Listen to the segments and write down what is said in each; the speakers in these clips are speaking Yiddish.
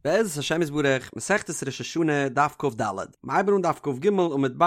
בעזרת השם יתברך, מסכת ראש השנה, דף כ"ד, מ'הייבן אן דף כ"ג עמוד ב',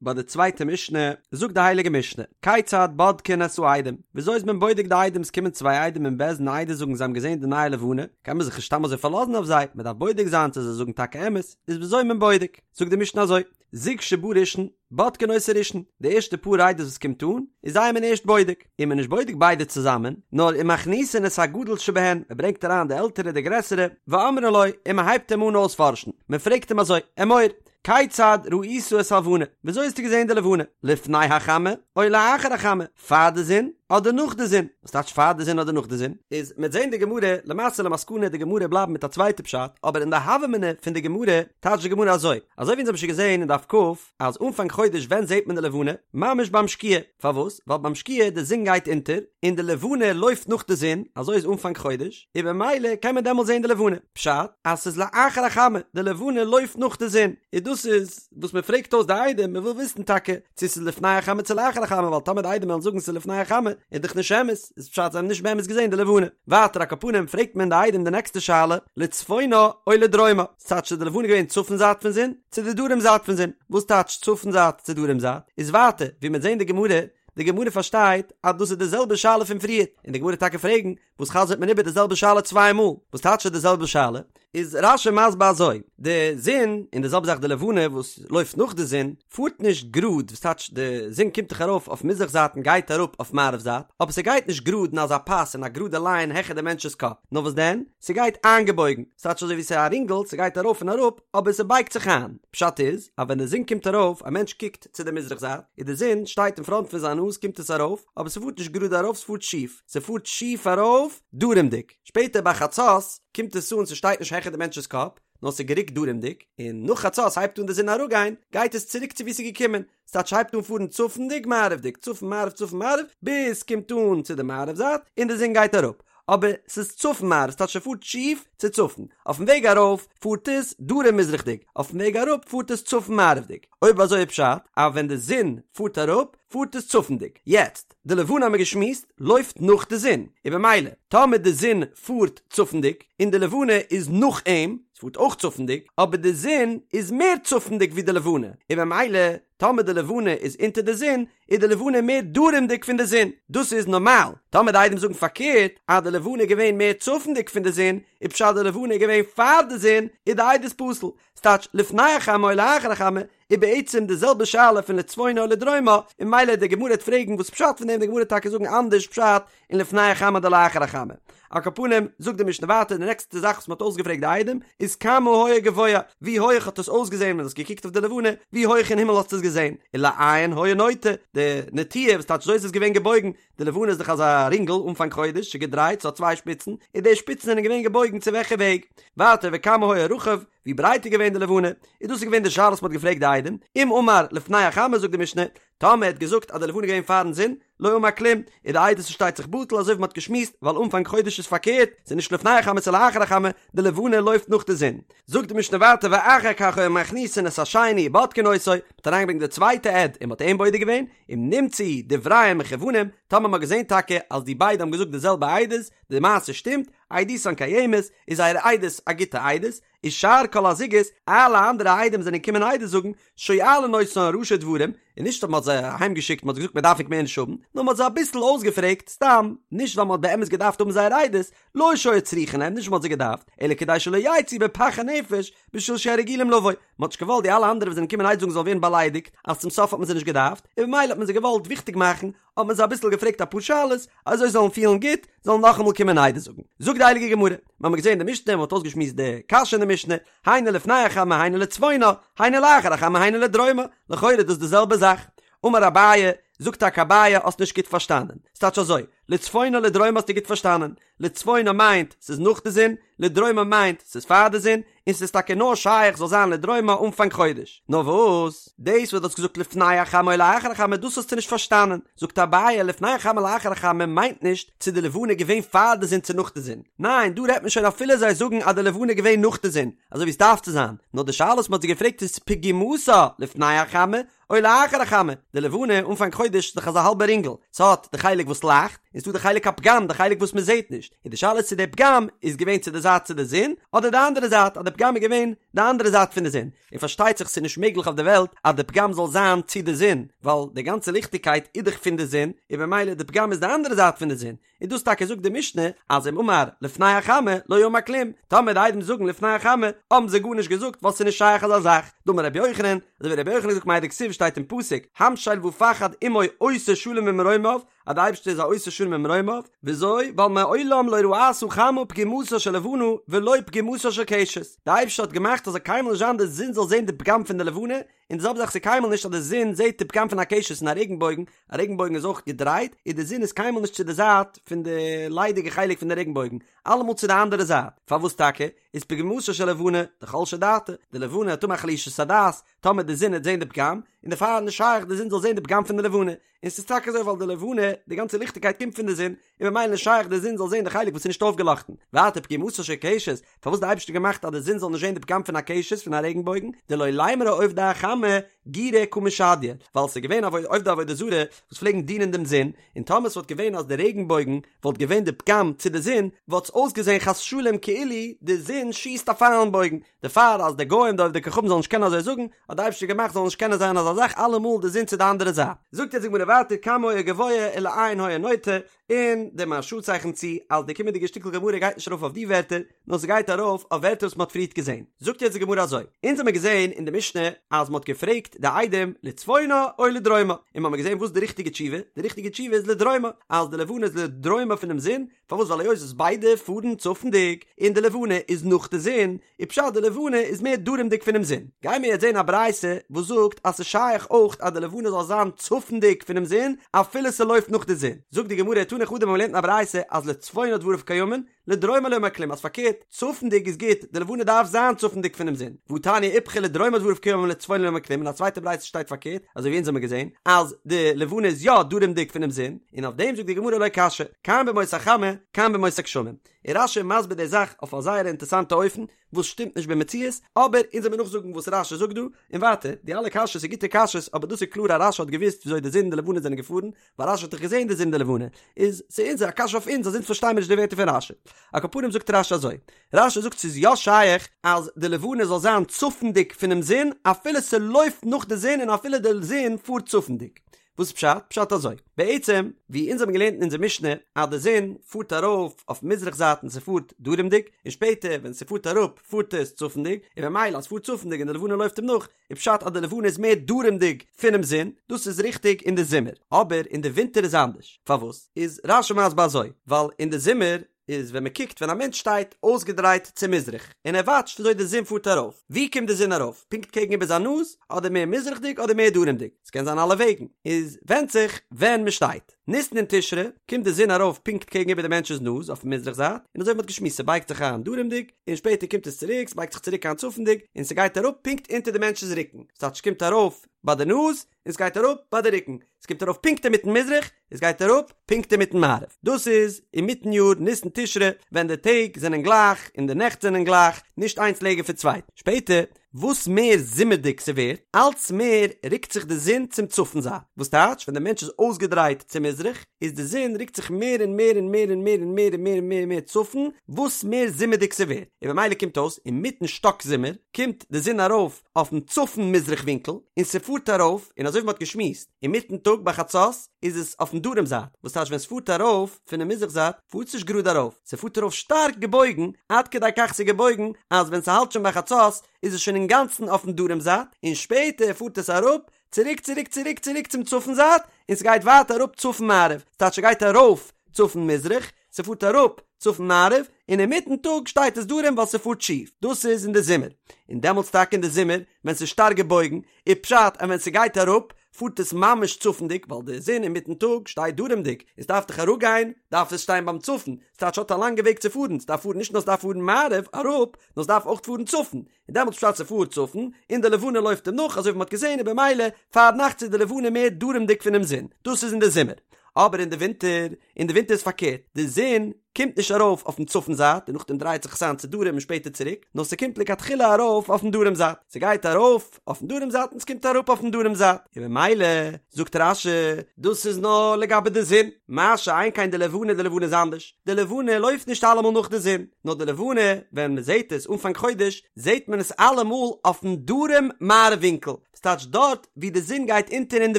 ביי די צווייטע משנה, זאגט די הייליגע משנה, כיצד בודקין את העדים, וויאזוי איז מען בודק די עדים, עס קומען צוויי עדים אין בית דין עדות זאגן זיי האבן געזען די נייע לבנה, קען מען זיך נישט סתם אזוי פארלאזן אויף זיי, מען דארף בודק זיין צו זיי זאגן טאקע אמת, איז וויאזוי איז מען בודק, זאגט די משנה אזוי, זוג שבא ראשון, בודקין אותו ראשון, די ערשטע פאר עדות וואס קומט אן, איז זיי איז מען ערשט בודק, און מען איז נישט בודק ביידע צוזאמען, נאר ומכניסין את הגדול שבהן, מען ברענגט אריין די עלטערע די גרעסערע, ואומרין לו, און מען הייבט אים אן אויספארשן, מען פרעגט אים אזוי, אמור, כיצד ראית את הלבנה, וויאזוי האסטו געזען די לבנה, לפני החמה, או לאחר החמה, פאר די זון, אדער נאך די זון, וואס טייטש פאר די זון אדער נאך די זון? איז מ'עט זען די גמרא, למעשה למסקנא די גמרא בלייבן מיט א צווייטע פשט, אבער אין די הוה אמינא פון די גמרא טייטשט די גמרא אזוי, אזוי ווי אונז האבן שוין געזען אין דף כ, אז אנפאנג חודש ווען זעט מען די לבנה? ממש ביים שקיעה, פארוואס? ווייל ביים שקיעה די זון גייט אונטער, און די לבנה לויפט נאך די זון, אזוי איז אנפאנג חודש, און במילא קען מען דעמאלט זען די לבנה, פשט אז ס'איז לאחר החמה, די לבנה לויפט נאך די זון, און דאס איז וואס מען פרעגט אויס די עדים, מען וויל וויסן טאקע צו ס'איז לפני החמה צו לאחר החמה, ווייל טאמער די עדים וועלן זאגן ס'איז לפני החמה, איז דאך נישט אמת, איז פשט זיי האבן נישט באמת געזען די לבנה. ווייטער על כל פנים פרעגט מען די עדים די נעקסטע שאלה, לצפונה או לדרומה, ס'טייטש איז די לבנה געווען צפון זייט פון זון, צו די דרום זייט פון זון, וואס טייטש צפון זייט צו דרום זייט, איז ווייטער ווי מ'וועט זען די גמרא, די גמרא פארשטייט אז דאס איז די זעלבע שאלה פון פריער, און די גמרא טאקע פרעגן, וואס חזר'ט מען איבער די זעלבע שאלה צוויי מאל? וואס טייטש די זעלבע שאלה? איז רש"י מסביר אזוי, די זון, און די זעלבע זאך די לבנה וואס לויפט נאך די זון, פארט נישט גראד, וואס טייטש די זון קומט דאך ארויף אויף מזרח זייט און גייט אראפ אויף מערב זייט, אבער ס'גייט נישט גראד אין אזא פאס אין א גראדע ליין העכער די מענטש'ס קאפ, נאר וואס דען? ס'גייט איינגעבויגן, ס'טייטש אזוי ווי ס'איז א רינגל, ס'גייט ארויף און אראפ, אבער ס'בייגט זיך איין. פשט איז, אז ווען די זון קומט ארויף, א מענטש קוקט צו די מזרח זייט, און די זון שטייט אין פראנט פון זיין נאז קומט עס ארויף, אבער ס'פארט נישט גראד ארויף ס'פארט שיף, ס'פארט שיף ארויף דרומדיג, שפעטער ביי חצות קומט עס אן ס'שטייט נישט העכער די מענטש'ס קאפ, נאר ס'איז גערוקט דרומדיג, און נאך חצות הייבט אן די זון אראפגיין, גייט עס צוריק צו וואו ס'איז געקומען, ס'טייטש הייבט אן פארן צפונדיג מערב'דיג, צפון מערב צפון מערב, ביז ס'קומט אן צו די מערב זייט, און די זון גייט אראפ, אבער ס'איז צפון מערב, ס'טייטש ס'פארט שיף צו צפון, אויפן וועג ארויף פארט עס דרום מזרח'דיג, אויפן וועג אראפ פארט עס צפון מערב'דיג, אויב אזוי איז פשט אז ווען די זון פארט אראפ פארט עס צפונדיג, יעצט די לבנה האמיר געשמועסט לויפט נאך די זון, און במילא טאמער די זון פארט צפונדיג און די לבנה איז נאך אים, ס'פארט אויך צפונדיג, אבער די זון איז מער צפונדיג ווי די לבנה, און במילא טאמער די לבנה איז אונטער די זון, איז די לבנה מער דרומדיג פון די זון, דאס איז נארמאל, טאמער די עדים זאגן פארקערט אז די לבנה איז געווען מער צפונדיג פון די זון, איז פשט די לבנה איז געווען פאר די זון, איז די עדות פסול, ס'טייטש לפני החמה או לאחר החמה, איז בעצם די זעלבע שאלה פון לצפונה או לדרומה, און ממילא די גמרא וועט פרעגן וואס פשט פון דעם, די גמרא וועט טאקע זאגן אנדערש פשט אין לפני החמה אדער לאחר החמה. על כל פנים, זאגט די משנה ווייטער די נעקסטע זאך וואס מ'האט אויסגעפרעגט די עדים איז כמה היה גבוה, ווי הויעך האט עס אויסגעזען ווען דו האסט געקוקט אויף די לבנה, ווי הויעך אין הימל האסטו עס געזען, ולאין היה נוטה, די נטייה וואס טייטש אזוי איז עס געווען געבויגן, די לבנה איז דאך אזא רינגל אנפאנג חודש, ס'איז געדרייט, ס'האט צוויי שפיצן, און די שפיצן זענען געווען געבויגן צו וועלכע וועג? ווייטער וכמה היה רחב, ווי ברייט איז געווען די לבנה? און דאס איז געווען די שאלה וואס מ'האט געפרעגט די עדים, אם אמר לפני החמה זאגט די משנה, טאמער ער האט געזאגט אז די לבנה איז געווען פארן זון, לא אמר כלום, איז די עדות פארשטייט זיך בטל אזוי ווי מ'האט געשמועסט, ווייל אנפאנג חודש איז פארקערט, ס'איז נישט לפני החמה ס'איז לאחר החמה, די לבנה לויפט נאך די זון. זאגט די משנה ווייטער ואחר כך היו מכניסין את השני ובודקין אותו, מ'האט אריינגעברענגט די צווייטע עד און מ'האט אים בודק געווען, אם נמצאו דבריהם מכוונים, טאמער מ'האט געזען טאקע אז די ביידע האבן געזאגט די זעלבע עדות, די מעשה שטימט, עדותן קיימת, איז זייער עדות א גוטע עדות, ושאר כל הזוגות, אלע אנדערע עדים זענען געקומען עדות זאגן, שואלין אותן ראשי דברים, און נישט אז מען האט זיי אהיים געשיקט, מען האט געזאגט מען דארף ענק מער נישט האבן, נאר מען האט זיי אביסל אויסגעפרעגט, סתם, נישט ווייל מען האט באמת געדארפט האבן זייער עדות, לא שהיו צריכין להם, נישט מען האט זיי געדארפט, אלא כדי שלא יצאו בפח הנפש, בשביל שהרגילים לבוא, מען האט נישט געוואלט די אלע אנדערע וואס זענען געקומען עדות זאגן זאלן ווערן באליידיגט, אז צום סוף האט מען זיי נישט געדארפט, און במילא האט מען זיי געוואלט וויכטיג מאכן, האט מען זיי אביסל געפרעגט אפאר שאלות, אזוי זיי זאלן פילן גוט, זאלן נאכאמאל קומען עדות זאגן. זאגט די הייליגע גמרא, מיר האבן געזען די משנה, מען האט אויסגעשמועסט די קשיא אין די משנה, היינו לפני החמה היינו לצפונה, היינו לאחר החמה היינו לדרומה, לכאורה איז דאס די זעלבע זאך. אמר אביי, זאגט טאקע אביי, האסט נישט גוט פארשטאנען. ס'טייטש אזוי, לצפונה לדרומה האסטו גוט פארשטאנען, לצפונה מיינט ס'איז נאך די זון, לדרומה מיינט ס'איז פאר די זון, און ס'איז טאקע נאר שייך זאל זיין לדרומה אנפאנג חודש. נאר וואס? דאס וואס דו האסט געזאגט לפני החמה או לאחר החמה דאס האסטו נישט פארשטאנען. זאגט אביי לפני החמה לאחר החמה מיינט נישט צו די לבנה איז געווען פאר די זון צו נאך די זון. ניין, דא רעדט מען שוין אפילו זיי זאגן אז די לבנה איז געווען נאך די זון, אזוי ווי עס דארף צו זיין. נאר די שאלה וואס מ'האט זיי געפרעגט איז פגימתה לפני החמה או לאחר החמה, די לבנה אנפאנג חודש איז דאך אזא האלבע רינגל, ס'האט די חלק וואס לייכט, און ס'דא די חלק הפגם די חלק וואס מ'זעהט נישט, און די שאלה איז צו די פגם איז געווען צו די זייט. זייט צו די זון, אדער די אנדערע זייט אז די פגם איז געווען די אנדערע זייט פון די זון, און פארשטייט זיך ס'איז נישט מעגליך אויף די וועלט אז די פגם זאל זיין צו די זון, ווייל די גאנצע ליכטיגקייט איז דאך פון די זון, און במילא די פגם איז די אנדערע זייט פון די זון, און דאס טאקע זאגט די משנה אז אם אמר לפני החמה לא אמר כלום, טאמער די עדים זאגן לפני החמה האבן זיי גארנישט געזאגט ווייל ס'איז נישט שייך אזא זאך, דאמר רבי יוחנן, אזוי ווי רבי יוחנן האט געזאגט מאי דכתיב שטייט אין פסוק המשל ופחד עמו עושה שלום במרומיו, אז די אייבערשטער איז א עושה שלום במרומיו, וויאזוי? ווייל מעולם לא ראתה חמה פגימתה של לבנה ולא פגימתה של קשת, די אייבערשטער האט געמאכט אז זאל קיינמאל נישט זיין די זון זאל זען די פגם פון די לבנה, און די זעלבע זאך ס'איז קיינמאל נישט אז די זון זעט די פגם פון א קשת אין א רעגנבויגן, א רעגנבויגן איז אויך געדרייט, און די זון איז קיינמאל נישט צו די זייט פון די ליידיגע חלק פון די רעגנבויגן, אלעמאל צו די אנדערע זייט, פארוואס טאקע? איז פגימתה של לבנה דחלשה דעתה, די לבנה וועט האבן א חלישות הדעת, טאמער די זון וועט זען די פגם, און דערפאר איז נישט שייך די זון זאל זען די פגם פון די לבנה, און ס'איז טאקע אזוי ווייל די לבנה, די גאנצע ליכטיגקייט קומט פון די זון, און ממילא נישט שייך די זון זאל זען די חלק וואס איז נישט אויפגעלאכטן. ווייטער פגימתה של קשת, פארוואס די אייבערשטער געמאכט אז די זון זאל נישט זען די פגם פון א קשת פון א רעגנבויגן, דלא לימרו עובדי החמה גירי קא משדיא, ווייל ס'איז געווען עובדי עבודה זרה וואס פלעגן דינען דעם זון, און טאמער ס'וואלט געווען אז די רעגנבויגן וואלט געווען די פגם צו די זון, וואלט עס אויסגעזען חס ושלום כאילו די זון שיסט א פייל און בויגן, דערפאר אז די גוים די עובדי כוכבים זאלן נישט קענען אזוי זאגן, האט די אייבערשטער געמאכט זאל נישט קענען זיין אזא זאך אלעמאל די זון צו די אנדערע זייט. זאגט יעצט די גמרא ווייטער כמה היה גבוה ולאין היה נוטה, און די מהרש"א צייכנט צו אז די קומענדיגע שטיקל גמרא גייט נישט ארויף אויף די ווערטער, נאר ס'גייט ארויף אויף ווערטער וואס מ'האט פריערט געזען. זאגט יעצט די גמרא אזוי, אונז האמיר געזען אין די משנה אז מ'האט געפרעגט די עדים לצפונה או לדרומה, און מ'האמיר געזען וואס איז די ריכטיגע תשובה, די ריכטיגע תשובה איז לדרומה, אז די לבנה איז לדרומה פונעם זון, פארוואס ווייל היות וואס ביידע פארן צפונדיג און די לבנה איז נאך די זון, איז פשט די לבנה איז מער דרומדיג פונעם זון. גיימיר יעצט זען א ברייתא וואס זאגט אז ס'איז שייך אויך אז די לבנה זאל זיין צפונדיג פונעם זון אפילו ס'לויפט נאך די זון. זאגט די גמרא תני חדא מ'האט געלערנט אין א ברייתא אז לצפונה דבריו קיימין, לדרומה לא אמר כלום אז פארקערט, צפונדיג איז גוט, די לבנה דארף זיין צפונדיג פונעם זון. והא תניא איפכא לדרומה דבריו קיימין לצפונה לא אמר כלום אין א צווייטע ברייתא שטייט פארקערט, אזוי ווי אונז האמיר געזען אז די לבנה איז יא דרומדיג פונעם זון, און אויף דעם זאגט די גמרא לא קשיא, כאן בימות החמה, כאן בימות הגשמים. און רש"י איז מסביר די זאך אויף א זייער אינטערסאנטע אופן, וואס שטימט נישט במציאות, אבער אונז וועמיר נאכזאגן וואס רש"י זאגט דא, און ווייטער, די אלע קשיות איז גוטע קשיות, אבער דאס איז קלאר אז רש"י האט געוואוסט וויאזוי די זון און די לבנה זענען געפארן, ווייל רש"י האט דאך געזען די זון און די לבנה, איז ס'איז א קשיא אויף אונז אז אונז פארשטיימיר נישט די ווערטער פון רש"י. על כל פנים זאגט רש"י אזוי, רש"י זאגט ס'איז יא שייך אז די לבנה זאל זיין צפונדיג פונעם זון אפילו ס'לויפט נאך די זון און אפילו די זון פארט צפונדיג. וואס איז פשט? פשט אזוי, בעצם ווי אונז האבן געלערנט אין אונזער משנה אז די זון פארט ארויף אויף מזרח זייט און ס'פארט דרומדיג, און שפעטער ווען ס'פארט אראפ פארט עס צפונדיג, און במילא אז ס'פארט צפונדיג און די לבנה לויפט אים נאך, איז פשט אז די לבנה איז מער דרומדיג פונעם זון, דאס איז ריכטיג אין די זומער, אבער אין די ווינטער איז אנדערש, פארוואס? איז רש"י מסביר אזוי, ווייל אין די זומער איז ווען מען קוקט ווען א מענטש שטייט אויסגעדרייט צו מזרח און ער וואטשט וויאזוי די זון פארט ארויף, ווי קומט די זון ארויף? פונקט קעגן איבער זיין נאז? אדער מער מזרח'דיג אדער מער דרומ'דיג? ס'קען זיין אלע וועגן, איז ווענדט זיך ווען מען שטייט. ניסן און תשרי קומט די זון ארויף פונקט קעגן איבער די מענטש'ס נאז אויפן מזרח זייט, און אזוי ווי מ'האט געשמועסט ס'בייגט זיך איין דרומ'דיג, און שפעטער קומט עס צוריק, ס'בייגט זיך צוריק איין צפונ'דיג, און ס'גייט אראפ פונקט אונטער די מענטש'ס רוקן, ס'טייטש ס'קומט ארויף ביי די נאז, און ס'גייט אראפ ביי די רוקן, ס'קומט ארויף פונקט אינמיטן מזרח, און ס'גייט אראפ פונקט אינמיטן מערב. דאס איז אינמיטן יאר, ניסן תשרי, ווען די טעג זענען גלייך און די נעכט זענען גלייך, נישט איינס לענגער פון צווייטן. שפעטער, וואס מער זומערדיג ס'ווערט, אלץ מער רוקט זיך די זון צום צפון זייט. וואס טייטש, ווען דער מענטש איז אויסגעדרייט צו מזרח, איז די זון רוקט זיך מער און מער און מער און מער און מער און מער און מער און מער צפון, וואס מער זומערדיג ס'ווערט. און במילא קומט אויס, אינמיטן שטאק זומער, קומט די זון ארויף אויפן צפון מזרח ווינקל, און ס'פארט ארויף, און אזוי ווי מ'האט געשמועסט, אינמיטן טאג ביי חצות איז עס אויפן דרום זייט, וואס טייטש ווען ס'פארט ארויף פונעם מזרח זייט, פארט עס נישט גראד ארויף, ס'פארט ארויף שטארק געבויגן, עד כדי כך ס'איז געבויגן, אז ווען ס'האלט שוין ביי חצות איז עס שוין אינגאנצן אויפן דרום זייט, און שפעטער פארט עס אראפ, צוריק צוריק צוריק צוריק צום צפון זייט, און ס'גייט ווייטער אראפ צפון מערב, ס'טייטש ס'גייט ארויף צפון מזרח, ס'פארט אראפ צפון מערב, און אינמיטן טאג שטייט עס דרום ווייל ס'פארט שיף, דאס איז אין די זומער, און דעמאלטס טאקע אין די זומער ווען ס'איז שטארק געבויגן, איז פשט אז ווען ס'גייט אראפ פארט עס ממש צפונדיג ווייל די זון אינמיטן טאג שטייט דרומדיג, און ס'דארף דאך אראפגיין דארף עס שטיין ביים צפון, ס'טייטש ס'האט א לאנגע וועג צו פארן, ס'דארף פארן נישט נאר ס'דארף פארן מערב אראפ, נאר ס'דארף אויך פארן צפון, און דעמאלטס פשט ס'פארט צפון, און די לבנה לויפט אים נאך, אזוי ווי מ'האט געזען, און במילא פארנאכטס איז די לבנה מער דרומדיג פונעם זון, דאס איז אין די זומער. אבער אין די ווינטער, אין די ווינטער איז פארקערט, די זון. קומט נישט ארויף אויפן צפון זייט און נאכדעם דרייט זיך עס איין צו דרום און שפעטער צוריק, נאר ס'קומט לכתחילה ארויף אויפן דרום זייט, ס'גייט ארויף אויפן דרום זייט און ס'קומט אראפ אויפן דרום זייט, און במילא זאגט רש"י דאס איז נאר לגבי די זון, מה שאין כן די לבנה, די לבנה איז אנדערש, די לבנה לויפט נישט אלעמאל נאך די זון, נאר די לבנה ווען מ'זעט עס אנפאנג חודש זעט מען עס אלעמאל אויפן דרום מערב ווינקל, ס'טייטש דארט ווי די זון גייט אונטער אין די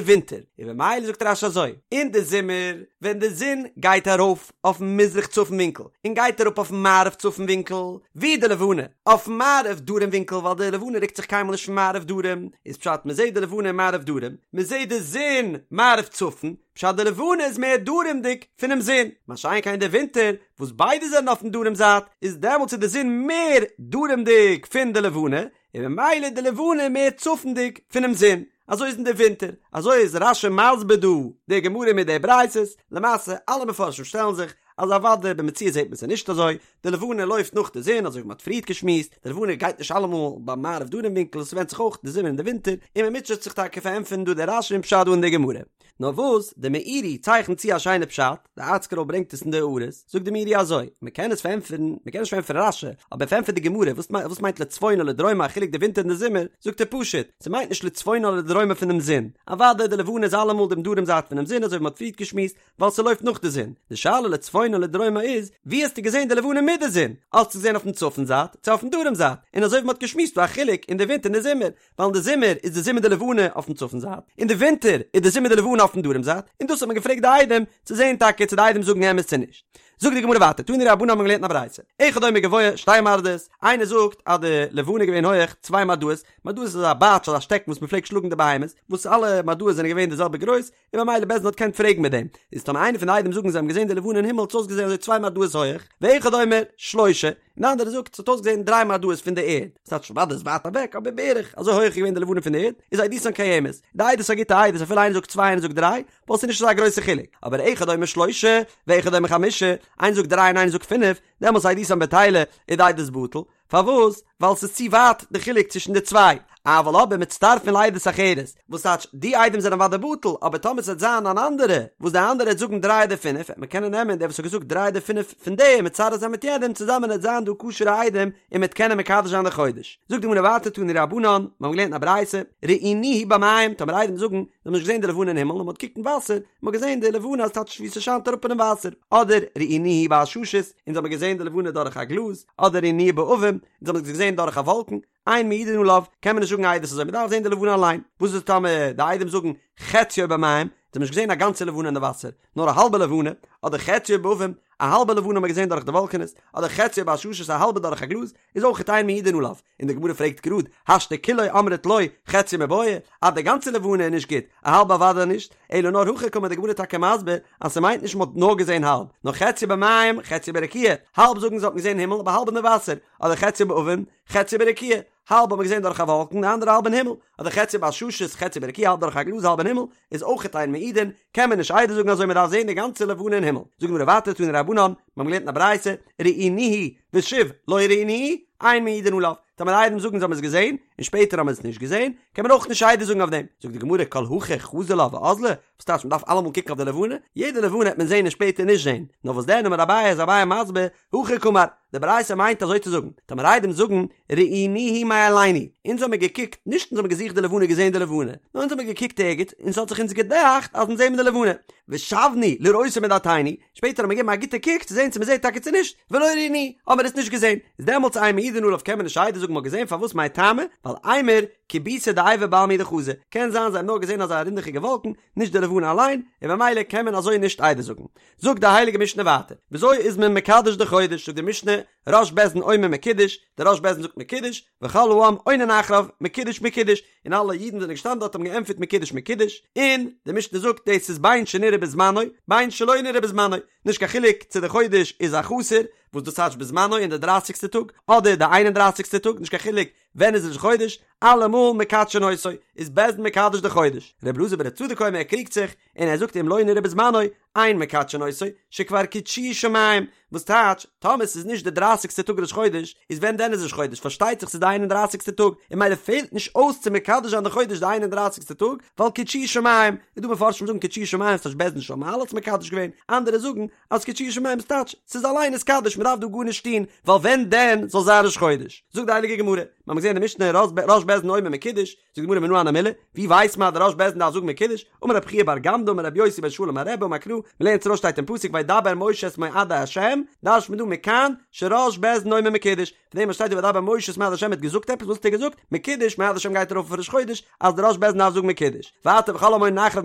ווינטער, און במילא זאגט רש"י אזוי, אין די זומער ווען די זון גייט ארויף אויפן מזרח צפון ווינקל און גייט אראפ אויפן מערב צפון ווינקל, ווי די לבנה אויפן מערב דרום ווינקל ווייל די לבנה רוקט זיך קיינמאל נישט פון מערב דרום, איז פשט מ'זעט די לבנה מערב דרום, מ'זעט די זון מערב צפון, פשט די לבנה איז מער דרומ'דיג פונעם זון, מה שאין כן אין די ווינטער וואס ביידע זענען אויפן דרום זייט, איז דעמאלטס איז די זון מער דרומ'דיג פון די לבנה, און ממילא די לבנה מער צפונדיג פונעם זון, אזוי איז אין די ווינטער, אזוי איז רש"י מסביר דא די גמרא מיט די ברייתות, למעשה אלע מפרשים שטעלן זיך אז אוודאי במציאות זעט מען עס נישט אזוי, די לבנה לויפט נאך די זון אזוי ווי מען האט פריערט געשמועסט, די לבנה גייט נישט אלעמאל ביים מערב דרום ווינקל, עס ווענדט זיך אויך די זומער און די ווינטער, און מען מוטשעט זיך טאקע פארענטפערן דא די רש"י און פשט דא אין די גמרא. נאר וואס, די מאירי צייכנט צו א שיינע פשט, די ארטסקרול ברענגט עס אין די הערות, זאגט די מאירי אזוי, מען קען עס פארענטפערן, מען קען נישט פארענטפערן רש"י, אבער פארענטפערט די גמרא, וואס וואס מיינט לצפונה לדרומה א חילוק די ווינטער און די זומער, זאגט ער פשוט, ס'מיינט נישט לצפונה לדרומה פונעם זון, אוודאי די לבנה איז אלעמאל דעם דרום זייט פונעם זון אזוי ווי מען האט פריערט געשמועסט, ווייל ס'לויפט נאך די זון, די שאלה לצפונה לדרומה איז, ווי האסטו געזען די לבנה מיט די זון? האסטו געזען אויפן צפון זייט, צו אויפן דרום זייט? און אזוי ווי מען האט געשמועסט דא א חילוק אין די ווינטער און די זומער, ווייל אין די זומער איז די זון מיט די לבנה אויפן צפון זייט, אין די ווינטער איז די זון מיט די לבנה אויפן דרום זייט, און דאס האט מען געפרעגט די עדים צו זען טאקע צו די עדים זאגן אמת צו נישט. זאגט די גמרא ווייטער, תנו רבנן האבן געלערנט אין א ברייתא, אחד אומר גבוה שתי מרדעות, איינער זאגט אז די לבנה איז געווען הויעך צוויי מרדעות, מרדעות איז אזא בייטש אזא שטעקן וואס מען פלעגט שלאגן די בהמות, וואס אלע מרדעות זענען געווען די זעלבע גרויס, און ממילא בית דין האט געקענט פרעגן מיט דעם, איז טאמער איינער פון די עדים זאגן זיי האבן געזען די לבנה אין הימל האט עס אויסגעזען אזוי צוויי מרדעות הויעך, ואחד אומר שלושה, און די אנדערע זאגט ס'האט אויסגעזען דריי מרדעות פון די ערד, ס'טייטש אוודאי איז ווייט אוועק אבער בערך אזוי הויעך איז געווען די לבנה פון די ערד, איז עדותן קיימת, די עדות איז א גוטע עדות אפילו איינער זאגט צוויי איינער זאגט דריי, ווייל ס'איז נישט אזא גרויסע חילוק, אבער אחד אומר שלושה, ואחד אומר חמשה, איינער זאגט דריי און איינער זאגט פינף, דעמאלטס עדותן בטילה, איז די עדות בטל, פארוואס? ווייל ס'איז צו ווייט די חילוק צווישן די צוויי. אבל אבער מצטרפין לעדות אחרת, וואס טייטש די עדים זענען אוודאי בטל, אבער טאמער ס'וועט זיין אן אנדערע, וואס די אנדערע וועט זאגן דריי אדער פינף, וועט מען קענען נעמען דער וואס האט געזאגט דריי אדער פינף פון די און מצרף זיין מיט יענעם, צוזאמען וועט זיין דא כשר'ע עדים און מ'וועט קענען מקדש זיין די חודש. זאגט די גמרא ווייטער תנו רבנן, מיר האבן געלערנט אין א ברייתא, ראינוהו במים, טאמער עדים זאגן, זיי האבן נישט געזען די לבנה אין הימל, נאר מ'האט געקוקט אין וואסער, מ'האט געזען די לבנה אז טייטש ווי ס'שיינט אראפ אינעם וואסער, אדער ראינוהו בעששית, אונז האבן געזען די לבנה דורך א גלאז, אדער ראינוהו בעבים, אונז האבן עס געזען דורך א וואלקן, אין מעידין עליו, קען מען נישט זאגן עדות אזוי, מ'דארף זען די לבנה אליין. וואס איז טאמער די עדים זאגן חציו במים, זיי האבן נישט געזען א גאנצע לבנה אין די וואסער, נאר א האלבע לבנה, אדער חציו בעבים, א האלבע לבנה האבן מיר געזען דורך די וואלקענעס, אדער חציו בעששית א האלבע דורך א גלאז, איז אויכעט אין מעידין עליו. און די גמרא פרעגט גראד, השתא כולו אמרת לא, חציו מיבעיא, אז די גאנצע לבנה איז נישט גוט, א האלבע אוודאי נישט, אלא נאר הכי קאמר די גמרא טאקע מסביר אז ס'מיינט נישט מ'האט נאר געזען האלב, נאר חציו במים חציו ברקיע, האלב זאגן זיי האט מען געזען הימל אבער האלב אין די וואסער, אדער חציו בעבים חציו ברקיע, האלב האט מען געזען דורך א וואלקן די אנדערע האלב אין הימל, אדער חציו בעששית חציו ברקיע האלב דורך א גלאז האלב אין הימל, איז אויכעט אין מעידין, קען מען נישט עדות זאגן אזוי מ'דארף זען די גאנצע לבנה אין הימל. זאגט די גמרא ווייטער תנו רבנן, מיר האבן געלערנט אין א ברייתא, ראינוהו ושוב לא ראינוהו, אין מעידין עליו, טאמער עדים זאגן זיי האבן עס געזען, און שפעטער האבן מיר עס נישט געזען, קען מען אויך נישט עדות זאגן אויף דעם. זאגט די גמרא כל הכי חזי לה ואזלא, וואס טייטש מען דארף אלעמאל קוקן אויף די לבנה? יעדע לבנה וועט מען זען און שפעטער נישט זען. נאר וואס דען אמר אביי איז אביי מסביר, הכי קאמר, די ברייתא מיינט אזוי צו זאגן, טאמער עדים זאגן, ראינוהו מאלינו, אונז האמיר געקוקט, נישט אונז האמיר געזוכט די לבנה געזען די לבנה, נאר אונז האמיר געקוקט ערגעץ און ס'האט זיך אונז געדאכט אז אונז זעמיר די לבנה, ושבנו לראותה מדעתינו, שפעטער האמיר געגעבן א גוטע קוק צו זען צו מ'זעט טאקע צו נישט, ולא ראינוהו, האמיר עס נישט געזען, איז דעמאלטס אין מעידין עליו קען מען נישט עדות זאגן מ'האט געזען פארוואס מאי טעמא, ווייל אימור כיבותא דעיבא בעלמא הוא דחזו, קען זיין זיי האבן נאר געזען אזא רונדעכיגע וואלקן, נישט די לבנה אליין, און במילא קען מען אזוי נישט עדות זאגן. זאגט די הייליגע משנה ווייטער, וויאזוי איז מען מקדש די חודש, זאגט די משנה, ראש בית דין אומר מקודש, דער ראש בית דין זאגט מקודש, וכל העם עונין אחריו, מקודש מקודש, און אלע אידן זענען געשטאנען דארט האבן געענטפערט מקודש מקודש, און די משנה זאגט דאס איז בין שנראה בזמנו בין שלא נראה בזמנו, נישט קיין חילוק צו די חודש איז א חסר, וואס דאס טייטש בזמנו אין די דרייסיגסטע טאג, אדער די איין און דרייסיגסטע טאג, נישט קיין חילוק ווען איז ראש חודש, אלעמאל מקדשין אותו, איז בית דין מקדש די חודש. ר' אלעזר בר' צדוק אומר ער קריגט זיך, און ער זאגט אם לא נראה בזמנו, אין מקדשין אותו, שכבר קידשוהו שמים, וואס טייטש, טאמער ס'איז נישט די דרייסיגסטע טאג ראש חודש, איז ווען דען איז ראש חודש? פארשטייט זיך ס'איז די איין און דרייסיגסטע טאג, און ממילא פעלט נישט אויס צו מקדש זיין די חודש די איין און דרייסיגסטע טאג, ווייל קידשוהו שמים, איז דא מפרשים זאגן קידשוהו שמים ס'טייטש בית דין של מעלה האט עס מקדש געווען, אנדערע זאגן אז קידשוהו שמים ס'טייטש ס'איז אליין נתקדש מ'דארף דא גארנישט טון, ווייל ווען דען זאל זיין ראש חודש? זאגט די הייליגע גמרא, מ'האמיר געזען אין די משנה ראש בית דין אומר מקודש, זאגט די גמרא מנא הני מילי, ווי ווייסט מען אז דער ראש בית דין דארף זאגן מקודש? אמר רב חייא בר גמדא אמר רבי יוסי בן שאול אמר רבי אמר קרא, מ'לערנט ארויס שטייט אין פסוק וידבר משה את מועדי השם, דרש'נט מען דא מכאן שראש בית דין אומר מקודש, פון דעם וואס שטייט דא וידבר משה את מועדי השם האט געזאגט עפעס, וואס האט ער געזאגט? מקודש, מועדי השם גייט ארויף אויף ראש חודש, אז דער ראש בית דין דארף זאגן מקודש. ווייטער וכל המונין אחריו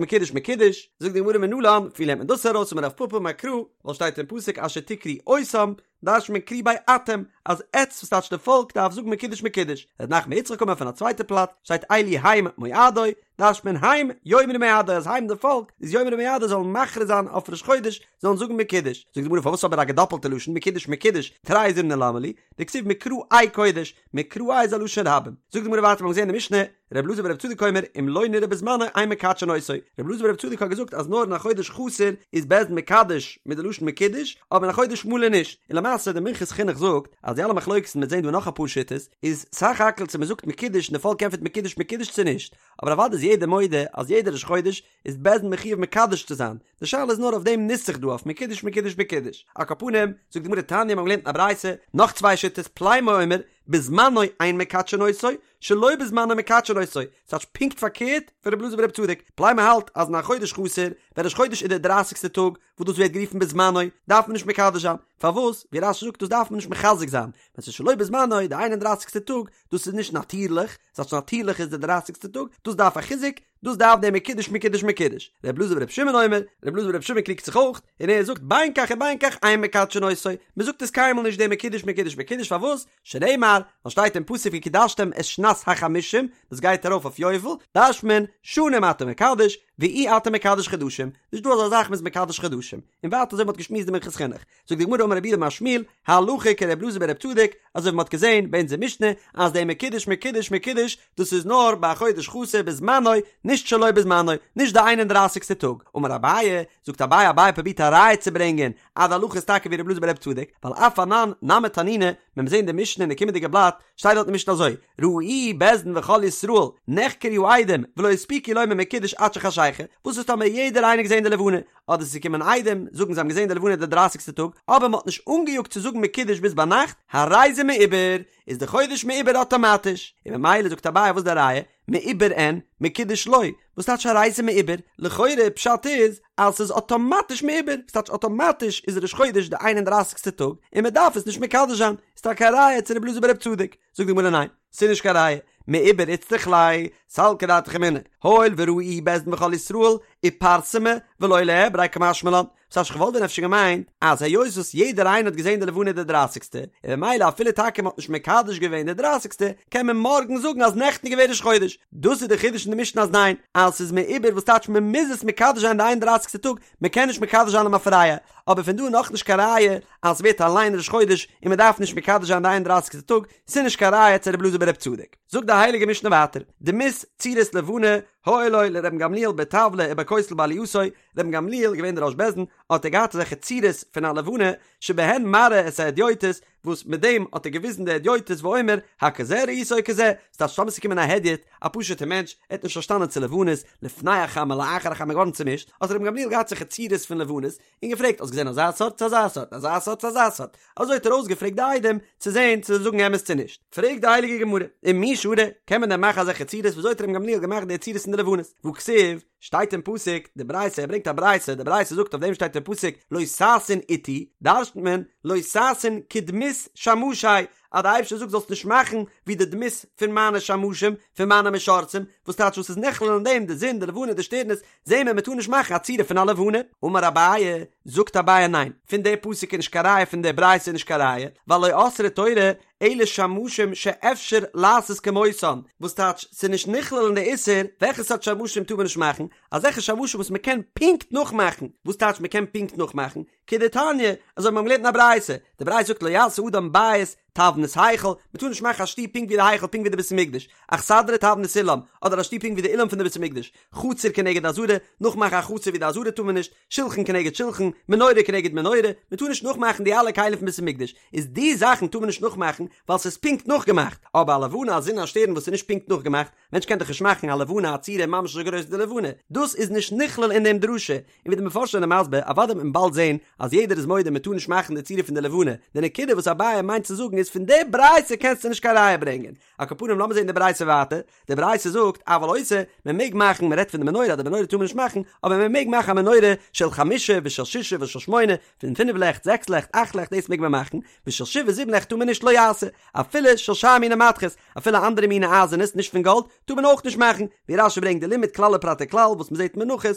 מקודש מקודש, זאגט די גמרא מנלן, ווי לערנט מען דאס ארויס? אמר רב פפא אמר קרא, ווייל שטייט אין פסוק אשר תקראו אותם, דרש'נט מען קרי ביה אתם, אז עטץ וואס טייטש די פאלק דארף זאגן מקודש מקודש, ר' נחמן בר יצחק אמר פון א צווייטע פלאץ, שטייט אלו הם מועדי, דרש'נט מען הם יאמרו מועדי אז הם די פאלק איז יאמרו מועדי זאלן מכריז זיין אויף ראש חודש זאלן זאגן מקודש, זאגט די גמרא פארוואס אבער א געדאפלטע לשון מקודש מקודש תרי זימני למה לי, דכתיב מקראי קודש, מקראי איז א לשון רבים, זאגט די גמרא ווייטער מיר האבן געזען אין די משנה, ר' אלעזר בר' צדוק אומר אם לא נראה בזמנו אין מקדשין אותו, ר' אלעזר בר' צדוק האט געזאגט אז נאר אין א חודש חסר איז בית דין מקדש מיט די לשון מקודש, אבער אין א חודש מלא נישט, און למעשה די מנחת חינוך זאגט אז די אלע מחלוקת'ן מ'וועט זען דא נאך אפאר שיטות איז סך הכל צו מ'זאגט מקודש און די פאלק ענטפערט מקודש מקודש צו נישט, אבער אוודאי איז יעדער מודה אז יעדער ראש חודש איז בית דין מחויב מקדש צו זיין, די שאלה איז נאר אויף דעם נוסח דא אויף מקודש מקודש מקודש. על כל פנים, זאגט די גמרא תניא מיר האבן געלערנט אין א ברייתא נאך צוויי שיטות פלימו אומר בזמנו אין מקדשין אותו שלא בזמנו מקדשין אותו, ס'טייטש פונקט פארקערט פון רבי אלעזר ברבי צדוק, פלימו האלט אז אין א חודש חסר, ווען ראש חודש איז דער דרייסיגסטער טאג, וואס דאס ווערט גערופן בזמנו, דארף מען נישט מקדש זיין, פארוואס? ווי רש"י זאגט דאס דארף מען נישט מחזק זיין, ווען ס'איז שלא בזמנו, די איין און דרייסיגסטע טאג, דאס איז נישט נאטירליך, ס'טייטש נאטירליך איז די דרייסיגסטע טאג, דאס דארף א חיזוק, דאס דארף דער מקודש מקודש מקודש. ר' אלעזר בר' שמעון אומר, ר' אלעזר בר' שמעון קריגט זיך אויך, און ער זאגט בין כך ובין כך אין מקדשין אותו, מ'זאגט עס קיינמאל נישט דער מקודש מקודש מקודש פארוואס? שנאמר, ווייל שטייט אין פסוק וקדשתם את שנת החמישים, דאס גייט ארויף אויף יובל, דרש'נט מען, שנים אתה מקדש, ואי אתה מקדש חדשים, נישט דא אזא זאך מ'איז מקדש חדשים, און ווייטער אזוי ווי מ'האט געשמועסט די מנחת חינוך. זאגט די גמרא אמר רב יהודה אמר שמואל, הלכה כר' אלעזר בר' צדוק, אזוי ווי מ'האט געזען ביי אונזער משנה אז דער מקודש מקודש מקודש דאס איז נאר ביי א חודש חסר בזמנו, נישט שלא בזמנו, נישט די איין און דרייסיגסטע טאג. אמר אביי, זאגט אביי, אביי פרובירט א ראיה צו ברענגען אז די הלכה איז טאקע ווי ר' אלעזר בר' צדוק, ווייל אף אנן נמי תנינא, ווען מיר זעהן די משנה אין די קומענדיגע בלאט, שטייט דארט אין משנה אזוי, ראוהו בית דין וכל ישראל, נחקרו העדים, ולא הספיקו לומר מקודש עד שחשיכה, וואס איז טאמער יעדער איינער געזעהן די לבנה, אדער ס'איז געקומען עדים, זאגן זיי האבן געזעהן די לבנה די דרייסיגסטע טאג, אבער מ'האט נישט אנגעיאגט צו זאגן מקודש ביז ביינאכט, הרי זה מעובר, איז די חודש מעובר אטאמאטיש, און ממילא זאגט אביי וואס איז די ראיה, מעובר אין, מקודש לא, וואס טייטש הרי זה מעובר? לכאורה פשט איז אז ס'איז אטאמאטיש מעובר, וואס טייטש אטאמאטיש איז ראש חודש די איין און דרייסיגסטע טאג, און מ'דארף עס נישט מקדש זיין, איז טאקע א ראיה צו רבי אלעזר ברבי צדוק, זאגט די גמרא ניין, ס'איז נישט קיין ראיה, מעובר איצטריך ליה, סלקא דעתך אמינא, הואיל וראוהו בית דין וכל ישראל, איפרסמא ולא ליעבריה קמשמע לן, ס'טייטש כ'וואלט ווען אפשר געמיינט אז היות וואס יעדער איינער האט געזען די לבנה די דרייסיגסטע, און ממילא אפילו טאקע מ'האט נישט מקדש געווען די דרייסיגסטע, קען מען מארגן זאגן אז נעכטן איז געווען ראש חודש. דאס איז די חידוש אין די משנה אז ניין, אז ס'איז מעובר וואס טייטש מ'מוז עס מקדש זיין די איין און דרייסיגסטע טאג, מ'קען נישט מקדש זיין למפרע, אבער פון דא איז נאכנישט קיין ראיה אז ס'ווערט אליין ראש חודש און מ'דארף נישט מקדש זיין די איין און דרייסיגסטע טאג, ס'איז נישט קיין ראיה צו רבי אלעזר ברבי צדוק. זאגט די הייליגע משנה ווייטער, דמות צורת לבנה היו לו לרבן גמליאל בטבלא ובכותל בעלייתו, רבן גמליאל איז געווען דער ראש בית דין, האט ער געהאט אזעלכע צורות פון א לבנה, שבהן מראה את ההדיוטות, וואס מיט דעם האט ער געוויזן די הדיוטות ואומר, הכזה ראית או כזה, ס'טייטש טאמער ס'איז געקומען א הדיוט, א פשוט'ער מענטש, ער האט נישט פארשטאנען צו לבנות, לפני החמה לאחר החמה געווארן צומישט, האט רבן גמליאל געהאט אזעלכע צורות פון לבנות, און געפרעגט האסט געזען אזא סארט צו אזא סארט, אזא סארט צו אזא סארט, אזוי האט ער אויסגעפרעגט די עדים צו זען צו זיי זאגן אמת צו נישט. פרעגט די הייליגע גמרא, ומי שרי, קען מען דען מאכן אזעלכע צורות, וויאזוי האט רבן גמליאל געמאכט די צורות אין די לבנות? והכתיב, שטייט אין פסוק, די ברייתא, ער ברענגט א ברייתא, די ברייתא זאגט אויף דעם שטייט אין פסוק לא תעשון אתי, דרש'נט מען לא תעשון כדמות שמשי, אז די אייבערשטער זאגט זאלסט נישט מאכן ווי די דמות פון מיינע שמשים, פון מיינע משרתים, וואס טייטש וואס איז נכלל אין דעם, די זון, די לבנה, די שטערנעס, זעהן מיר מען טאר נישט מאכן א צורה פון א לבנה. אמר אביי, זאגט אביי ניין, פון די פסוק איז נישט קיין ראיה פון די ברייתא איז נישט קיין ראיה, ווייל לא אסרה תורה אלא שמשים שאפשר לעשות כמותן, וואס טייטש ס'איז נישט נכלל אין די איסור, וועלכע סארט שמשים טאר מען נישט מאכן? אזעלכע שמשים וואס מ'קען פונקט נאכמאכן, וואס טייטש מ'קען פונקט נאכמאכן? כדתניא, אזוי ווי מ'האט געלערנט אין א ברייתא, די ברייתא זאגט לא יעשה אדם בית. תבנית היכל, מען טאר נישט מאכן א שטוב פונקט ווי די היכל פונקט ווי די בית המקדש, אכסדרה תבנית אולם, אדער א שטוב פונקט ווי די אולם פון די בית המקדש, חצר כנגד עזרה, נאכמאכן א חצר ווי די עזרה טאר מען נישט, שלחן כנגד שלחן, מנורה כנגד מנורה, מען טאר נישט נאכמאכן די אלע כלים פון בית המקדש, איז די זאכן טאר מען נישט נאכמאכן ווייל ס'איז פונקט נאכגעמאכט, אבער א לבנה א זון א שטערן וואס איז נישט פונקט נאכגעמאכט, מענטש קען דאך נישט מאכן א לבנה א צורה ממש אזוי גרויס ווי די לבנה, דאס איז נישט נכלל אין דעם דרשה, און ווי די מפרשים זענען מסביר, אוודאי וועט מען באלד זען אז יעדער איז מודה מען טאר נישט מאכן די צורה פון די לבנה, די נקודה וואס אביי מיינט צו זאגן איז פון די ברייתא קענסטו נישט קיין ראיה ברענגען, על כל פנים לאמיר זען די ברייתא ווייטער, די ברייתא זאגט אבל עושה, מען מעג מאכן, מען רעדט פון די מנורה אז די מנורה טאר מען נישט מאכן, אבער מען מעג מאכן א מנורה של חמשה ושל ששה ושל שמונה, פון פינף לעכט, זעקס לעכט, אכט לעכט דאס מעג מען מאכן, ושל שבעה זיבן לעכט טאר מען נישט לא יעשה, אפילו של שאר מיני מתכות, אפילו אנדערע מיני אייזענעס נישט פון גאלד, טאר מען אויך נישט מאכן, ווי רש"י ברענגט די לימוד כלל ופרט וכלל וואס מען זעט אין מנחות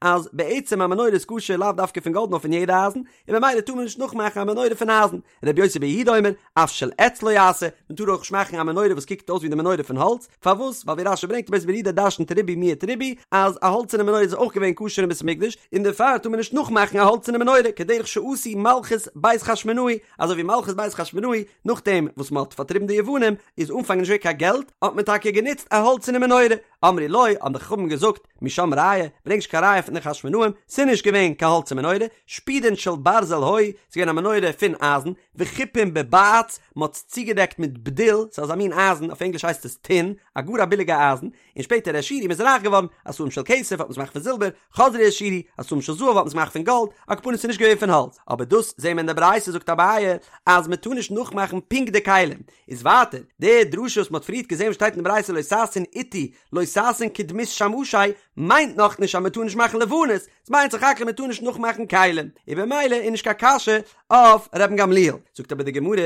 אז בעצם א מנורה איז כשר לאו דווקא פון גאלד נאר פון יעדע אייזן, און ממילא טאר מען נישט נאכמאכן א מנורה פון אייזן, רבי יוסי בר יהודה אומר, אף של עץ לא יעשה, מען טאר אויך נישט מאכן א מנורה וואס קוקט אויס ווי די מנורה פון האלץ, פארוואס? ווייל ווי רש"י ברענגט רבי יוסי בר יהודה דרשנ'ט ריבוי מיעט ריבוי, אז א האלצערנע מנורה איז אויך געווען כשר אין בית המקדש, און דערפאר טאר מען נישט נאכמאכן א האלצערנע מנורה, כדרך שעשו מלכות בית חשמונאי, אזוי ווי מלכות בית חשמונאי, נאכדעם וואס מען האט פארטריבן די יוונים, איז אנפאנג נישט געווען קיין געלט, האט מען טאקע גענוצט א האלצערנע מנורה, אמרו לו, האבן די חכמים געזאגט, משם ראיה, ברענג נישט קיין ראיה פון די חשמונאים, ס'איז נישט געווען קיין האלצער מנורה, שפודין של ברזל היו, ס'איז געווען א מנורה פון אייזן, וחופין בבעץ, מ'האט עס צוגעדעקט מיט בדיל, ס'איז אזא מין אייזן, אויף ענגליש הייסט עס טין, א גאר א ביליגע אייזן, און שפעטער העשירו מ'איז רייך געווארן, עשאום של כסף האט מען עס געמאכט פון זילבער, חזרו העשירו, עשאום של זהב האט מען עס געמאכט פון גאלד, על כל פנים ס'איז נישט געווען פון האלץ, אבער דאס זעהן מיר אין די ברייתא זאגט אביי אז מ'טאר נישט נאכמאכן פונקט די כלים, איז ווייטער, די דרשה וואס מ'האט פריערט געזעהן וואס שטייט אין די ברייתא לא תעשון אתי לא תעשון כדמות שמשי מיינט נאכנישט אז מ'טאר נישט מאכן לבנות, ס'מיינט סך הכל מ'טאר נישט נאכמאכן כלים, און במילא איז נישט קיין קשיא אויף רבן גמליאל. זאגט אבער די גמרא,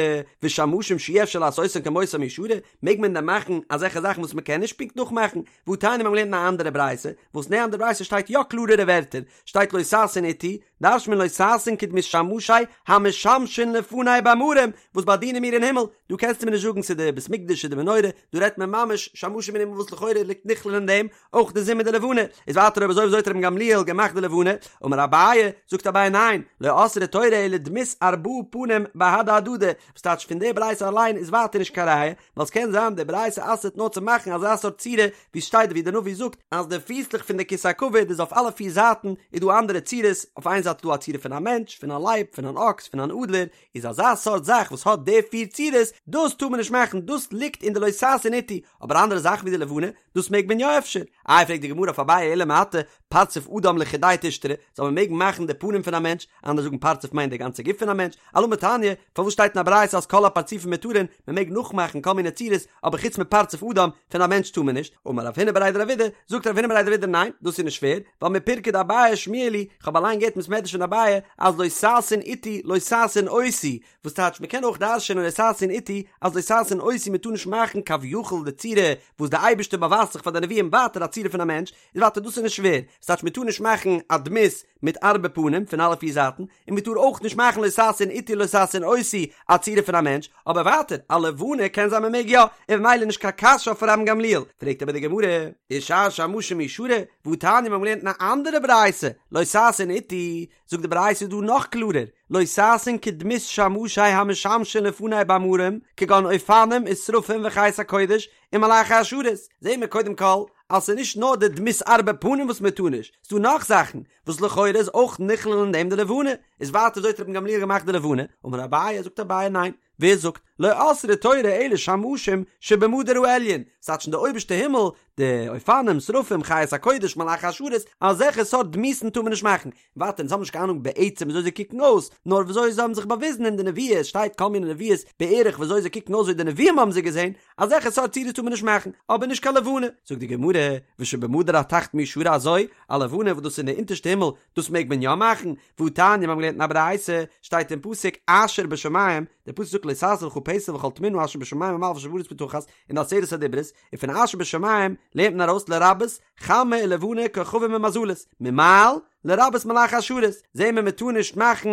ושמשים שאי אפשר לעשותם כמותם מי שרי, מעג מען דען מאכן אזעלכע זאכן וואס מ'קען נישט פונקט נאכמאכן? והתניא מיר האבן געלערנט אין א אנדערע ברייתא, וואס אין די אנדערע ברייתא שטייט יא קלארערע ווערטער, שטייט לא תעשון אתי, דרש'נט מען לא תעשון כדמות שמשי המשמשין לפני במרום, וואס באדינען מיר אין הימל, דא קענסטו מיר נישט זאגן ס'איז די בית מקדש ס'איז די מנורה, דא רעדט מען ממש שמשים אין הימל וואס לכאורה ליגט נכלל אין דעם אויך די זון מיט די לבנה, איז ווייטער אויב אזוי וויאזוי האט רבן גמליאל געמאכט די לבנה, אמר אביי, זאגט אביי ניין, לא אסרה תורה אלא דמות ארבעה פנים בהדי הדדי, וואס טייטש פון די ברייתא אליין איז ווייטער נישט קיין ראיה, ווייל ס'קען זיין די ברייתא אסר'ט נאר צו מאכן אזא סארט צורה ווי ס'שטייט ווי די נביא זאגט אז די פיסלעך פון די כסא הכבוד איז אויף אלע פיר זייטן איז דא אנדערע צורות, אויף איין זייט איז דא א צורה פון א מענטש, פון א לייב, פון אן אקס, פון אן אדלער, איז אזא סארט זאך וואס האט די פיר צורות, דאס טאר מען נישט מאכן, דאס ליגט אין די לא תעשון אתי, אבער אנדערע זאכן ווי די לבנה, דאס מעג מען יא אפשר? איי פרעגט די גמרא אויף אביי אלא מעתה פרצוף אדם לחודיה תשתרי, זאל מען מעגן מאכן די פנים פון א מענטש, אנדערע זאגן פרצוף מיינט די גאנצע גוף פון א מענטש, אלמה תניא, פארוואס שטייט אין א ברייתא אז כל הפרצופים מותרין, מען מעג נאכמאכן כל מיני צורות, אבער חוץ מפרצוף אדם, פון א מענטש טאר מען נישט, אמר רב הונא בריה דרב אידי, זאגט רב הונא בריה דרב אידי ניין, דאס איז נישט שווער, ווייל מפירקא דאביי שמיע לי, כ'האב אליין געהערט אין בית מדרש פון אביי, אז לא תעשון אתי לא תעשון אותי, וואס טייטש מען קען אויך דרש'ענען לא תעשון אתי אז לא תעשון אותי מען טאר נישט מאכן כביכול די צורה וואס די אייבערשטער באווייזט זיך פאר די נביאים ווייטער א צורה פון א מענטש איז ווייטער דאס איז נישט שווער וואס טייטש מען טאר נישט מאכן א דמות מיט ארבע פנים פון אלע פיר זייטן און מען טאר אויך נישט מאכן לא תעשון אתי לא תעשון אותי א צורה פון א מענטש אבער ווייטער א לבנה קען זיין מען מעג יא און ממילא נישט קיין קשיא אויף רבן גמליאל פרעגט אבער די גמרא ושאר שמשים מי שרי והתניא מיר האבן געלערנט אין א אנדערע ברייתא לא תעשון אתי זאגט די ברייתא דא נאך קלארער, לא תעשון כדמות שמשי המשמשין לפני במרום, כגון אופנים ושרפים וחיות הקודש ומלאכי השרת, זעהן מיר קודם כל אז ס'איז נישט נאר די דמות ארבע פנים וואס מען טאר נישט, ס'דא נאך זאכן וואס לכאורה איז אויך נכלל אין דעם די לבנה, איז ווייטער וויאזוי האט רבן גמליאל געמאכט די לבנה, אמר אביי, זאגט אביי ניין, ווער זאגט, לא אסרה תורה אלא שמשים שבמדור העליון, ס'טייטש אין די אויבערשטע הימל, די אופנים, שרפים, חיות הקודש, מלאכי השרת, אזעלכע סארט דמות'ן טאר מען נישט מאכן. ווייטער אונז האבן נישט קיין אהנונג בעצם וויאזוי זיי קוקן אויס, נאר וויאזוי זיי האבן זיך באוויזן אין די נביאות, שטייט כל מיני נביאות בערך וויאזוי זיי קוקן אויס ווי די נביאים האבן זיי געזען, אזעלכע סארט צורות טאר מען נישט מאכן, אבער נישט קיין לבנה. זאגט די גמרא, ושבמדור התחתון מי שרי אזוי, א לבנה וואס דאס איז אין די אונטערשטע הימל, דאס מעג מען יא מאכן, והתניא מיר האבן געלערנט אין א ברייתא, שטייט אין פסוק אשר בשמים, דער פסוק זאגט לא תעשה לך פסל וכל תמונה אשר בשמים ממעל ואשר בארץ מתחת, אין די עשרת הדיברות, און פון אשר בשמים לערנט מען ארויס לרבות חמה ולבנה כוכבים ומזלות, ממעל, לרבות מלאכי השרת, זעהן מיר מען טאר נישט מאכן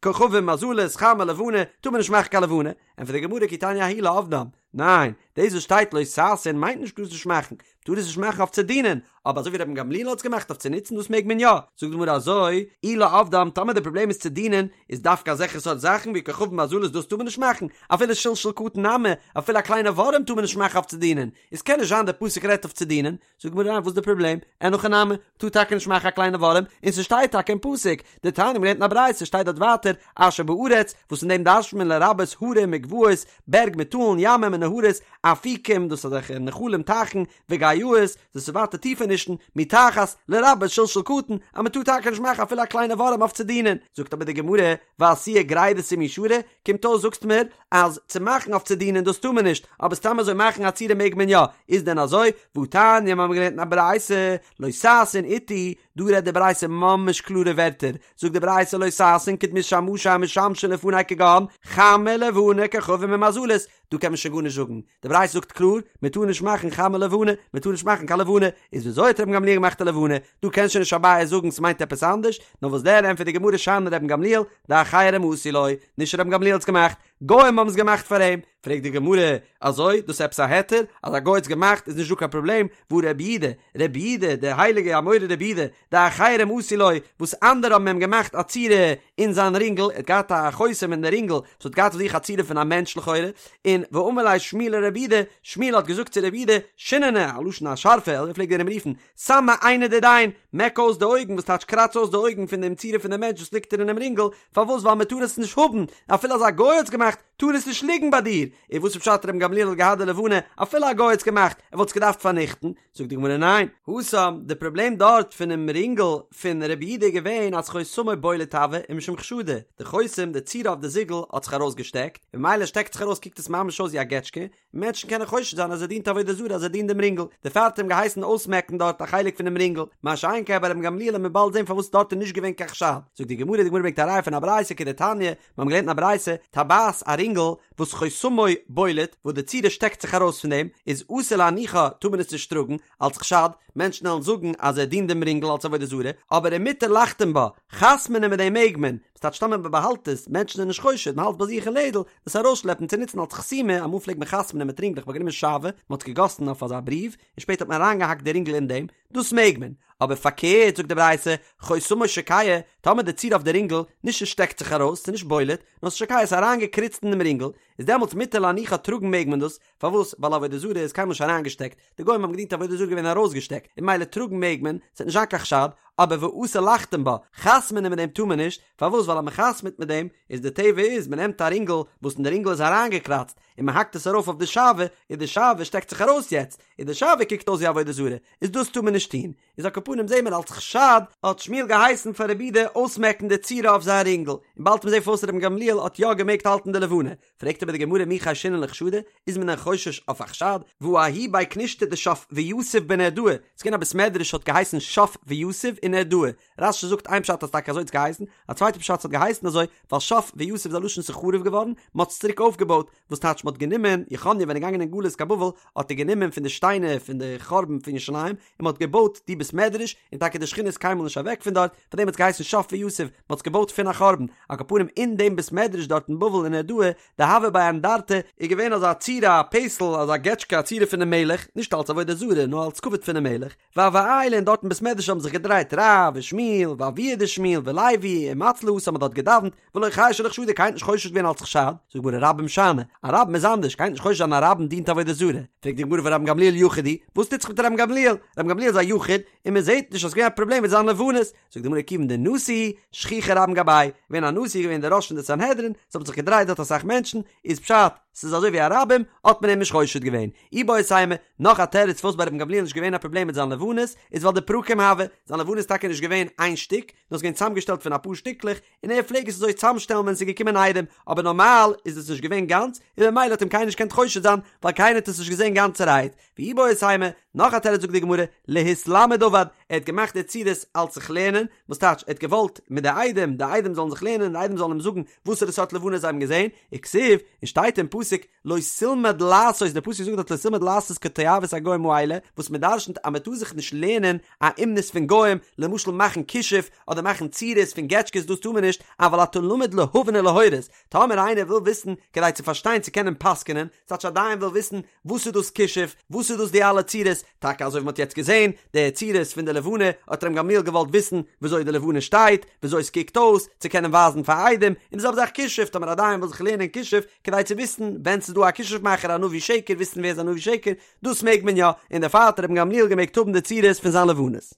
כוכבים מזלות חמה לבנה, טאר מען נישט מאכן קיין לבנה, ענטפערט די גמרא כי תניא ההיא לעבדם. ניין, דאס וואס שטייט לא תעשון מיינט נישט טארסט נישט מאכן, טאר עס נישט מאכן אויף צו דינען, אבער אזוי ווי רבן גמליאל האט עס געמאכט אויף צו נוצן דאס מעג מען יא, זאגט די גמרא אזוי, אי לעובדם, טאמער די פראבלעם איז צו דינען, איז דווקא אזעלכע סארט זאכן ווי כוכבים ומזלות דאס טאר מען נישט מאכן, אפילו שלשול קטן נמי, אפילו א קליינע ווארעם טאר מען נישט מאכן אויף צו דינען, איז קען נישט זיין די פסוק רעדט אויף צו דינען, זאגט די גמרא ניין וואס איז די פראבלעם, אין הכי נמי, מ'טאר טאקע נישט מאכן א קליינע ווארעם, און ס'שטייט טאקע אין פסוק, דתניא מ'לערנט אין א ברייתא שטייט דארט ווייטער, אשר בארץ, וואס אין דעם דרש'נט מען לרבות הרים וגבעות, בערג מיט טאלן, ימים און נהרות, אפיקים, דאס איז אזעלכע נחלים טייכן, וגאיות, דאס איז ווייטער טיפענישן, מתחת, לרבות שלשול קטן, אז מען טאר טאקע נישט מאכן אפילו א קליינע ווארעם אויף צו דינען. זאגט אבער די גמרא, ועשיה גרידתא מי שרי, קומט אויס זאגסט מיר, אז צו מאכן אויף צו דינען דאס טאר מען נישט, אבער סתם אזוי מאכן א צורה מעג מען יא, איז דען אזוי? והתניא, מיר האבן געלערנט אין א ברייתא, לא תעשון אתי, דא רעדט די ברייתא ממש קלארע ווערטער, זאגט די ברייתא לא תעשון כדמות שמשה המשמשין לפני כגון חמה לבנה כוכבים ומזלות, דא קען מען שוין גארנישט זאגן, די ברייתא זאגט קלאר, מען טאר נישט מאכן חמה לבנה, מען טאר נישט מאכן קיין לבנה, איז וויאזוי האט רבן גמליאל געמאכט א לבנה? דא קען שוין נישט אביי זאגן ס'מיינט עפעס אנדערש, נאר וואס דען ענטפערט די גמרא שאני רבן גמליאל, דאחרים עשו לו, נישט רבן גמליאל האט עס געמאכט, גוים האבן עס געמאכט פאר אים, פרעגט די גמרא, אזוי? דאס איז עפעס א היתר? אז א גוי האט עס געמאכט איז נישט דא קיין פראבלעם, והא רבי יהודה, רבי יהודה, דער הייליגער אמורא רבי יהודה, דאחרים עשו לו, וואס אנדערע האבן אים געמאכט א צורה אין זיין רינגל, ער האט געהאט א חותם אין די רינגל וואס האט געהאט אויף זיך א צורה פון א מענטש לכאורה, און ואמר ליה שמואל לרבי יהודה, שמואל האט געזאגט צו רבי יהודה, שיננא, א לשון א שארפע, אזוי פלעגט ער אים רופן, סמי עינא דדין, מעק אויס די אויגן, וואס טייטש קראץ אויס די אויגן פון דעם צורה פון דעם מענטש וואס ליגט דיר אינעם רינגל, פארוואס ווייל מען טאר עס נישט האבן, אפילו אז א גוי האט עס געמאכט, טאר עס נישט ליגן ביי דיר, און וואס איז פשט רבן גמליאל האט געהאט די לבנה, אפילו א גוי האט עס געמאכט, ער וואלט עס געדארפט פארניכטן, זאגט די גמרא ניין, התם, די פראבלעם דארט פונעם רינגל פון רבי יהודה איז געווען אז חותמו בולט הוה ומשום חשדא, די חותם, די צורה אויף די זיגל האט זיך ארויסגעשטעקט, און ממילא שטעקט זיך ארויס קוקט עס ממש אויס ווי א געטשקע, מענטשן קענען חושד זיין אז ער דינט עבודה זרה אז ער דינט דעם רינגל, דערפאר האט ער אים געהייסן אויסמעקן דארט א חלק פונעם רינגל, מה שאין כן ביי רבן גמליאל וועט מען באלד זען פארוואס דארט איז נישט געווען קיין חשד, זאגט די גמרא, די גמרא ברענגט א ראיה פון א ברייתא כדתניא, מיר האבן געלערנט אין א ברייתא, טבעת א רינגל וואס חותמו בולט, וואס די צורה שטעקט זיך ארויס פון דעם, איז אסור להניחה טאר מען עס נישט טראגן, אלס חשד, מענטשן וועלן זאגן אז ער דינט דעם רינגל אלס עבודה זרה, אבער ומותר לחתום בה, חתמ'נען מיט דעם מעג מען, ס'טייטש טאמער מען באהאלט עס, מענטשן זענען נישט חושד, מען האלט ביי זיך אין לעדל, דאס ארויסשלעפן צו נוצן אלס חתימה, אמאל פלעגט מען חתמ'נען מיט רינגלעך, מען האט גענומען שעוה, מען האט עס געגאסן אויף אזא בריוו, און שפעטער האט מען אריינגעהאקט די רינגל אין דעם, דאס מעג מען, אבער פארקערט זאגט די ברייתא, חותמו שוקע, טאמער די צורה אויף די רינגל, נישט עס שטעקט זיך ארויס, ס'איז נישט בולט, נאר ס'איז שוקע, ס'איז אריינגעקריצט אין דעם רינגל, איז דעמאלטס מותר להניחה טראגן מעג מען דאס, פארוואס? ווייל עבודה זרה איז קיינמאל נישט אריינגעשטעקט, די גוים האבן געדינט עבודה זרה געווען ארויסגעשטעקט, און ממילא טראגן מעג מען, ס'וועט נישט זיין קיין חשד, אבער ואסור לחתום בה, חתמ'נען מיט דעם טאר מען נישט, פארוואס? ווייל אז מען חתמ'ט מיט דעם, איז די טבע איז, מען נעמט א רינגל, וואס אין די רינגל איז אריינגעקראצט, און מען האקט עס ארויף אויף די שעוה, און די שעוה שטעקט זיך ארויס יעצט, און די שעוה קוקט אויס ווי עבודה זרה, איז דאס טאר מען נישט טון. איז על כל פנים זעהן מיר אלס חשד, האט שמואל געהייסן פאר רבי יהודה אויסמעקן די צורה אויף זיין רינגל, און באלד וועט מען זעהן פארוואס רבן גמליאל האט יא געמעגט האלטן די לבנה, פרעגט אבער די גמרא מי חיישינן לחשדא, איז מען דען חושש אויף א חשד? והא ההוא בי כנישתא דשף ויתיב בנהרדעא, ס'איז געווען א בית מדרש האט געהייסן שף ויתיב אין נהרדעא, רש"י זאגט איין פשט אז טאקע אזוי האט עס געהייסן, א צווייטע פשט ס'האט געהייסן אזוי ווייל שף ויתיב איז א לשון ס'איז חרוב געווארן, מ'האט עס צוריק אויפגעבויט, וואס טייטש מ'האט גענומען, יכניה ווען ער איז געגאנגען אין גלות קיין בבל האט ער גענומען פון די שטיינער פון די חורבן פון ירושלים און מ'האט געבויט די בית מדרש, און טאקע די שכינה איז קיינמאל נישט אוועק פון דארט, פאר דעם האט עס געהייסן שף ויתיב, מ'האט עס געבויט פון א חורבן, על כל פנים אין דעם בית מדרש דארט אין בבל אין נהרדעא, דהוה ביה אנדרטא, איז געווען אזא צורה א פסל אזא געטשקע א צורה פונעם מלך, נישט אלס עבודה זרה נאר אלס כבוד פונעם מלך, והוו עיילי און דארט אין בית מדרש האבן זיך געדרייט רב ושמואל ואבוה דשמואל ולוי ומצלו התם מ'האט דארט געדאווענט ולא חיישו לחשדא קיינער האט נישט חושש געווען אלס חשד, זאגט די גמרא רבים שאני, א רבים איז אנדערש קיינער האט נישט חושש זיין א רבים דינט עבודה זרה, פרעגט די גמרא והא רבן גמליאל יחיד הוא, וואס טוט זיך מיט רבן גמליאל, רבן גמליאל איז א יחיד און מען זעט נישט אז ס'געווען א פראבלעם מיט זיין לבנות, זאגט די גמרא כיוון דנשיא שכיחי רבים גביה, געווען א נשיא געווען דער ראש פון די סנהדרין, ס'האבן זיך געדרייט דארט אסאך מענטשן, איז פשט ס'איז אזוי ווי א רבים, האט מען אים נישט חושד געווען. איבעית אימא, נאך א תירוץ פארוואס ביי רבן גמליאל נישט געווען א פראבלעם מיט זיין לבנות, איז ווייל דפרקים הוו, זיין לבנה איז טאקע נישט געווען איין שטיק, נאר ס'איז געווען צוזאמגעשטעלט פון אפאר שטיקלעך, און ער פלעג עס אזוי צוזאמשטעלן ווען ס'איז געקומען עדים, אבער נארמאל איז עס נישט געווען גאנץ, און ממילא האט אים קיינער נישט געקענט חושד זיין, ווייל קיינער האט עס נישט געזען גאנצערהייט. ואיבעית אימא. נאך א תירוץ זאגט די גמרא, להתלמד עבד, ער האט געמאכט די צורות אלץ זיך לערנען, וואס טייטש ער האט געוואלט מיט די עדים, די עדים זאלן זיך לערנען, די עדים זאלן אים זאגן וואסערע סארט לבנה זיי האבן געזען, וכתיב, און שטייט אין פסוק, לא תלמד לעשות, דער פסוק זאגט דארט לא תלמד לעשות כתועבת הגוים האלה, וואס מען דרשנ'ט אז מען טאר זיך נישט לערנען א אומנות פון גוים, למשל מאכן כישוף, אדער מאכן צורות פון געטשקעס דאס טאר מען נישט, אבל אתה למד להבין ולהורות, טאמער איינער וויל וויסן כדי צו פארשטיין צו קענען פסק'נען, ס'טייטש א דיין וויל וויסן וואס איז דאס כישוף, וואס איז דאס די אלע צורות, טאקע אזוי ווי מ'האט יעצט געזען, די צורות פון די לבנה, האט רבן גמליאל געוואלט וויסן וויאזוי די לבנה שטייט, וויאזוי עס קוקט אויס, צו קענען ווייזן פאר עדים, און די זעלבע זאך כישוף, טאמער א דיין וויל זיך לערנען כישוף, כדי צו וויסן ווען ס'איז דא א כישוף מאכער א נביא שקר, וויסן ווער איז א נביא שקר, דאס מעג מען יא, און דערפאר האט רבן גמליאל געמעגט האבן די צורות פון זיין לבנות.